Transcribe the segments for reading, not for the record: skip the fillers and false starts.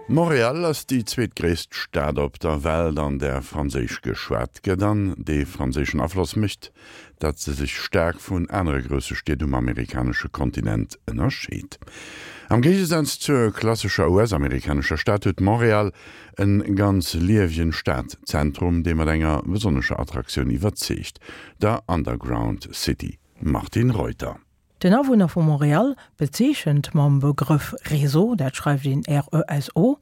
Montréal ass déi zweetgréisst Stad op der Welt, an där Franséisch geschwat gëtt, an dee franséischen Afloss mécht, datt se sech staark vun anere grousse Stied um amerikanesche Kontinent ënnerscheet. Am Géigesaz zur klassescher US-amerikanescher Stad huet Montréal en ganz liewegen Stadzentrum, dee mat enger besonnescher Attraktioun iwwerzeegt, der Underground City. Martine Reuter. Den Awunner vu Montréal bezeechent mam Begrëff Réseau, dat schreift een R-E-S-O,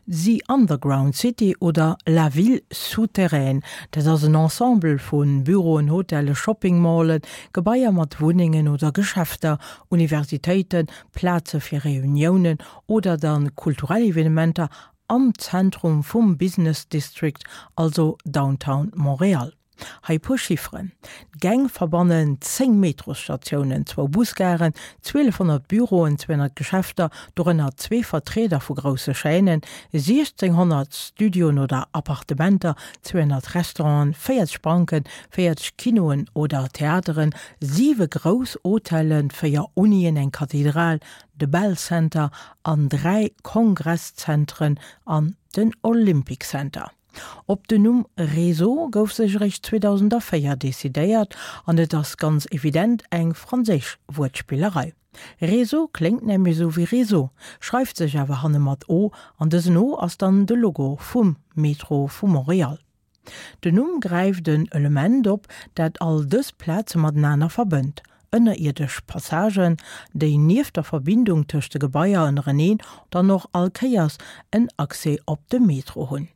The Underground City oder La Ville souterraine. Dat ass en Ensemble vu Büroen, Hotelle, Shopping-Mallen, Gebaier mat Wunnengen oder Geschäfter, Universitéiten, Plaze fir Reuniounen oder dann kulturell Evenementer am Zentrum vum Business District, also Downtown Montréal. Hei e puer Chifferen, D'Gäng verbannen 10 Metrosstatiounen, zwou Busgaren, 1.200 Büroen, 200 Geschäfter, dorënner zwee Vertrieder vu grousse Chaînen, 1.600 Studioen oder Appartementer, 200 Restauranten, 40 Banken, 40 Kinoen oder Theateren, siwe grouss Hotellen, véier Unien, eng Kathedral, de Bell Center an dräi Kongresszentren an den Olympic Center. Op den Numm Réseau gouf sech eréischt 2004 decidéiert an et ass ganz evident eng franséisch Wuertspillerei. Réseau kléngt nämlech esou wéi Réseau, schreift sech awer hanne mat o an dësen o ass dann de Logo vum Metro vu Montréal. Den Numm gräift en Element op, dat all dës Plaze matenaner verbënnt, ënnerierdesch Passagen, déi nieft der Verbindung tëscht de Gebaier ënnereneen dann och all Kéiers en Accès op de Metro hunn.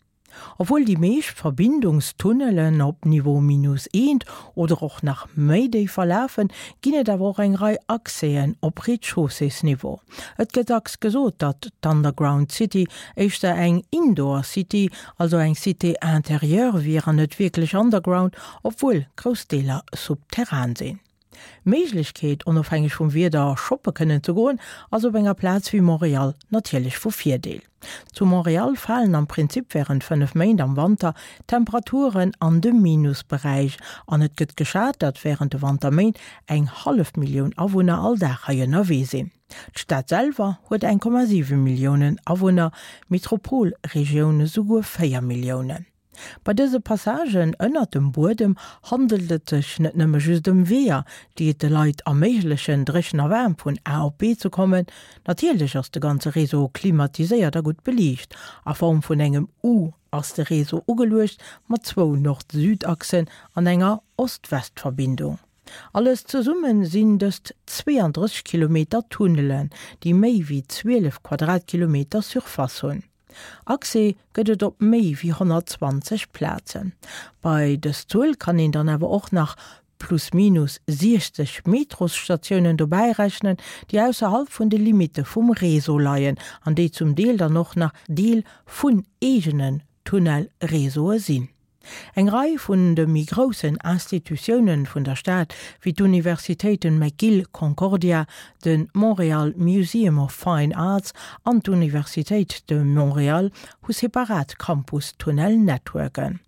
Obwuel déi meescht Verbindungstunnelen op Niveau minus eent oder och nach méi déif verlafen, ginn et awer och eng Rei Accèsen op Rez-de-chaussées-Niveau. Et gëtt dacks gesot, datt d'Underground City éischter eng Indoor City, also eng Cité intérieure wier an net wierklech underground, obwuel grouss Deeler subterran sinn. D'Méiglechkeet, onofhängeg vum Wieder shoppe kënnen ze goen, ass op enger Plaz wéi Montréal natierlech vu Virdeel. Zu Montréal falen am Prinzip wärend 5 Méint am Wanter d'Temperaturen an de Minusberäich an et gëtt geschat, datt wärend de Wanterméint eng hallef Millioun Awunner all Dag hei ënnerwee sinn. D'Stad selwer huet 1,7 Milliounen Awunner, d'Metropolregioun esouguer 4 Milliounen. Bei dëse Passagen ënnert dem Buedem handelt et sech net nëmme just ëm Weeër, déi et de Leit erméiglechen, dréchen a waarm vun A op B ze kommen. Natierlech ass de ganze Réseau klimatiséiert a gutt beliicht. A Form vun engem U ass de Réseau ugeluecht, mat zwou Nord-Süd-Achsen an enger Ost-West-Verbindung. Alles zesumme sinn dëst 32 Kilometer Tunnelen, déi méi wéi 12 Quadratkilometer Surface hunn. Accès gëtt et op méi wéi 120 Plazen. Bei dës Zuel kann een dann awer och nach plus minus 60 Metrosstatiounen dobäi rechnen, déi ausserhalb vun de Limitte vum Réseau leien an déi zum Deel dann och nach Deel vun eegenen Tunnelréseaue sinn. Eng Rei vun de méi groussen Institutiounen vun der Stad, wéi d'Universitéiten McGill, Concordia, de Montréal Museum of Fine Arts an d'Universitéit de Montréal, hu separat Campus-Tunnel-Networken.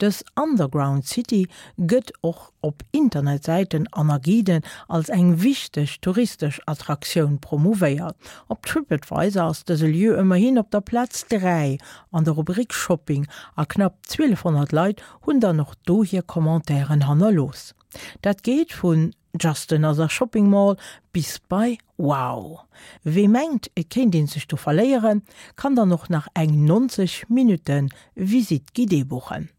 Dës Underground City gëtt och op Internetsäiten an a Guiden als eng wichteg touristesch Attraktioun promouvéiert. Op Tripadvisor ass dëse Lieu ëmmerhin op der Plaz 3 an der Rubrik Shopping a knapp 1200 Leit hunn dann och do hir Commentairen hannerlooss. Dat geet vun Just another shopping mall bis bei Wow! Wee mengt et kéint een sech do verléieren, kann dann och nach eng 90 Minutten Visite guidée buchen.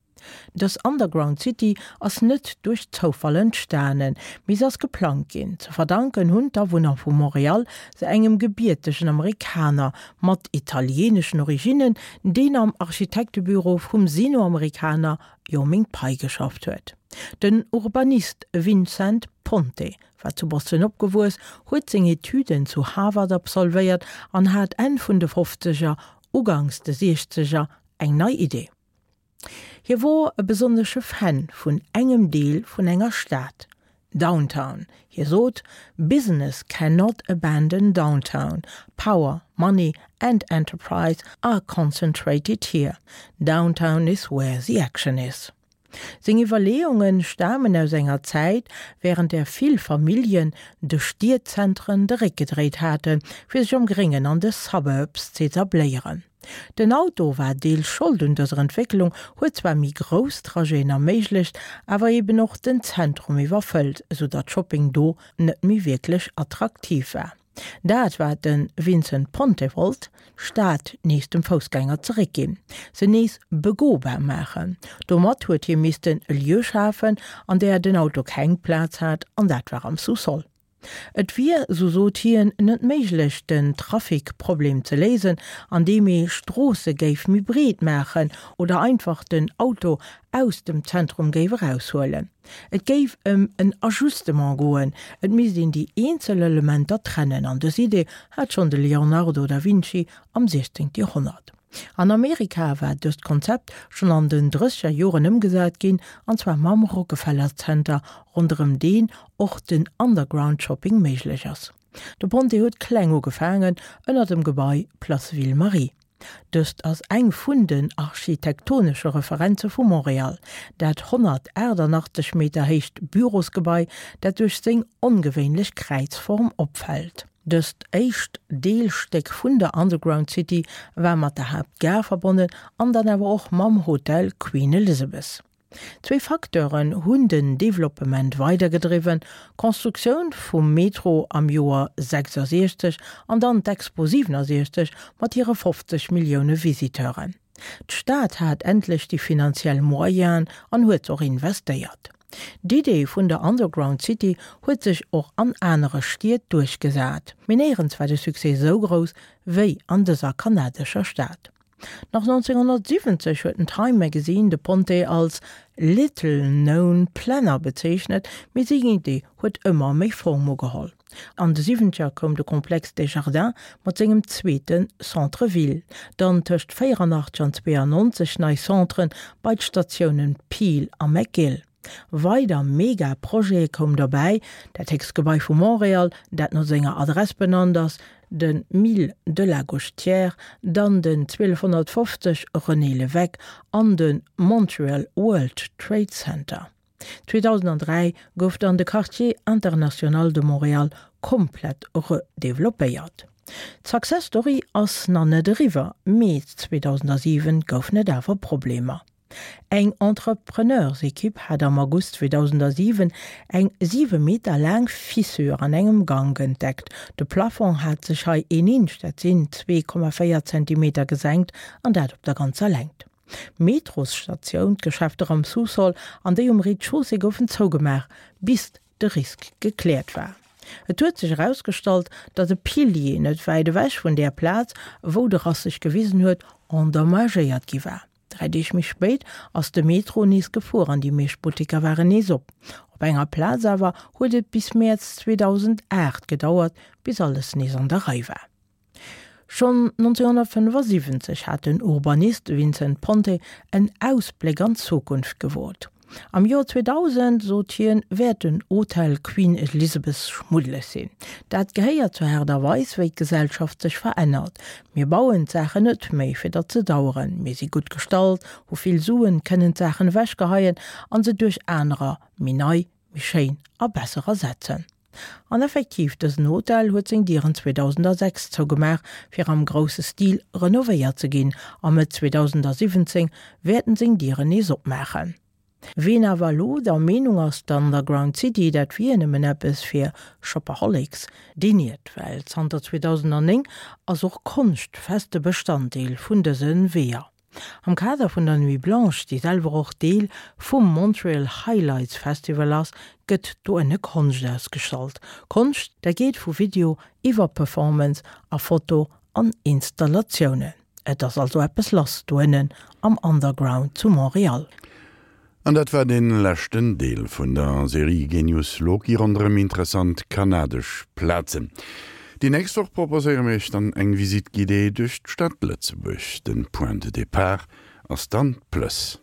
Dës Underground City ass net duerch Zoufall entstanen, mee se ass geplangt ginn. Ze verdanken hunn d'Awunner vu Montréal se engem gebiertegen Amerikaner mat italieeneschen Originnen, deen am Architektebüro vum Sino-Amerikaner Yoh Ming Pei geschafft huet. Den Urbanist Vincent Ponte war zu Boston opgewuess, huet seng Etüden zu Harvard absolvéiert an hat Enn vun de Fofzeger, uganks de Siechzeger eng nei Idee. Hie wor e besonnesche Fan vun engem Deel vun enger Stad, Downtown. Hie sot, Business cannot abandon downtown. Power, money and enterprise are concentrated here. Downtown is where the action is. Seng Iwwerleeunge stamen aus enger Zäit, wärend där vill Familljen de Stiedzentren de Réck gedréit haten, fir sech am Gréngen an de Suburbs z'etabléieren. Den Auto war deels Schold un dëser Entwécklung, huet zwar méi grouss Trajeten erméiglecht, awer eben och den Zentrum iwwerfëllt, esou datt Shopping do net méi wierklech attraktiv war. Dat wat de Vincent Ponte wollt, d'Stad nees dem Foussgänger zeréckginn, se nees begobar maachen. Domat huet hie missten e Lieu schafen, an där den Auto keng Plaz hat, an dat war am Sous-sol. Et wier, sou sot hien, net méiglech den Trafic-Problem ze léisen, andeem ee Stroosse géif méi breet maachen oder einfach den Auto aus dem Zentrum géif eraushuelen. Et géif ëm en Ajustement goen, et misst een déi eenzel Elementer trennen an dës Idee hat schonn de Leonardo da Vinci am 16. Joerhonnert. An Amerika war dëst Konzept schonn an den drësseger Joren ëmgesat ginn, an zwar mam Rockefeller Center, ronderëm deen och den Underground Shopping méiglech ass. De Ponte huet kleng ugefaangen, ënner dem Gebai Place Ville Marie. Dëst ass eng vun den architektonesche Referenze vu Montréal, dat 188 Meter héicht Bürosgebai, dat duerch seng ongewéinlech Kräizform opfält. Dëst éischt Deelstéck vun der Underground City war mat der Haaptgare verbonnen an dann awer och mam Hotel Queen Elizabeth. Zwee Facteuren hunn den Developpement weidergedriwwen, d'Constructioun vum Metro am Joer 66 an dann d'Expo 67 mat hire 50 Millioune Visiteuren. D'Stad hat endlech déi finanziell Moyenen an huet se och investéiert. D'Idee vun der Underground City huet sech och an anere Stied duerchgesat, mee néierens war de Succès esou grouss wéi an dëser kanadescher Stad. Nach 1970 huet den Time Magazine de Ponte als little known planner bezeechnet, mee seng Idee huet ëmmer méi Form ugeholl. An de Siwwenzeger koum de Complexe Desjardins mat sengem zweete Centre Ville, dann tëscht 84 an 92 nei Centren bei d'Statiounen Peel a McGill. Weider Mega-Projete koum derbäi, dat héchst Gebai vu Montréal, dat no senger Adress benannt ass, de Mille de la Gauchetière, dann den 1250 René Lévesque an de Montreal World Trade Center. 2003 gouf dann de Quartier international de Montréal komplett redeveloppéiert. D'Success Story ass nach net eriwwer, mee 2007 goufen et awer Problemer. Eng Entrepreneursekipp hat am August 2007 eng 7 Meter laang Fissure an engem Gank entdeckt. De Plafong hat sech hei een Inch, dat sinn 2,4 Zentimeter, gesenkt an dat op der ganzer Längt. D'Metrosstatioun, d'Geschäfter am Sous-sol an déi um Rez-de-chaussée goufen zougemaach, bis de Risk gekläert war. Et huet sech erausgestallt, datt e Pilier net wäit ewech vun där Plaz, wou de Rass sech gewisen huet, endommagéiert gi war. Dräi Deeg méi spéit ass de Metro nees gefuer an déi meescht Butteker waren nees op. Op enger Plaz awer huet et bis Mäerz 2008 gedauert, bis alles nees an der Rei war. Schonn 1975 hat den Urbanist Vincent Ponte en Ausbléck an d'Zukunft gewot. Am Joer 2000, sot hien, wäert den Hotel Queen Elizabeth schmuddeleg sinn. Dat gehéiert zur Aart a Weis, wéi d'Gesellschaft sech verännert. Mir bauen d'Saachen net méi, fir datt se daueren. Mir si gutt gestallt, hu vill Suen, kënnen d'Saachen ewechgeheien an se duerch anerer, méi nei, méi schéin a besser ersetzen. An effektiv, dësen Hotel huet seng Dieren 2006 zougemaach, fir am grousse Stil renovéiert ze ginn, a Mëtt 2017 wäert en seng Dieren nees opmaachen. Ween awer elo der Meenung ass, d'Underground City, dat wier nëmmen eppes fir Shopaholics, deen iert, well zanter 2009 ass och Konscht feste Bestanddeel vun dëse Weeër. Am Kader vun der Nuit Blanche, déi selwer och Deel vum Montreal Highlights Festival ass, gëtt do ënne Konscht ausgestallt. Konscht, dat geet vu Video iwwer Performance a Foto an Installatiounen. Et ass also eppes lass do ënnen am Underground zu Montréal. An dat war dee leschten Deel vun der Serie Genius Loci ronderëm interessant kanadesch Plazen. Déi nächst Woch proposéiere mir iech dann eng Visite guidée duerch d'Stad Lëtzebuerg. Den Point de départ ass dann d'Plëss.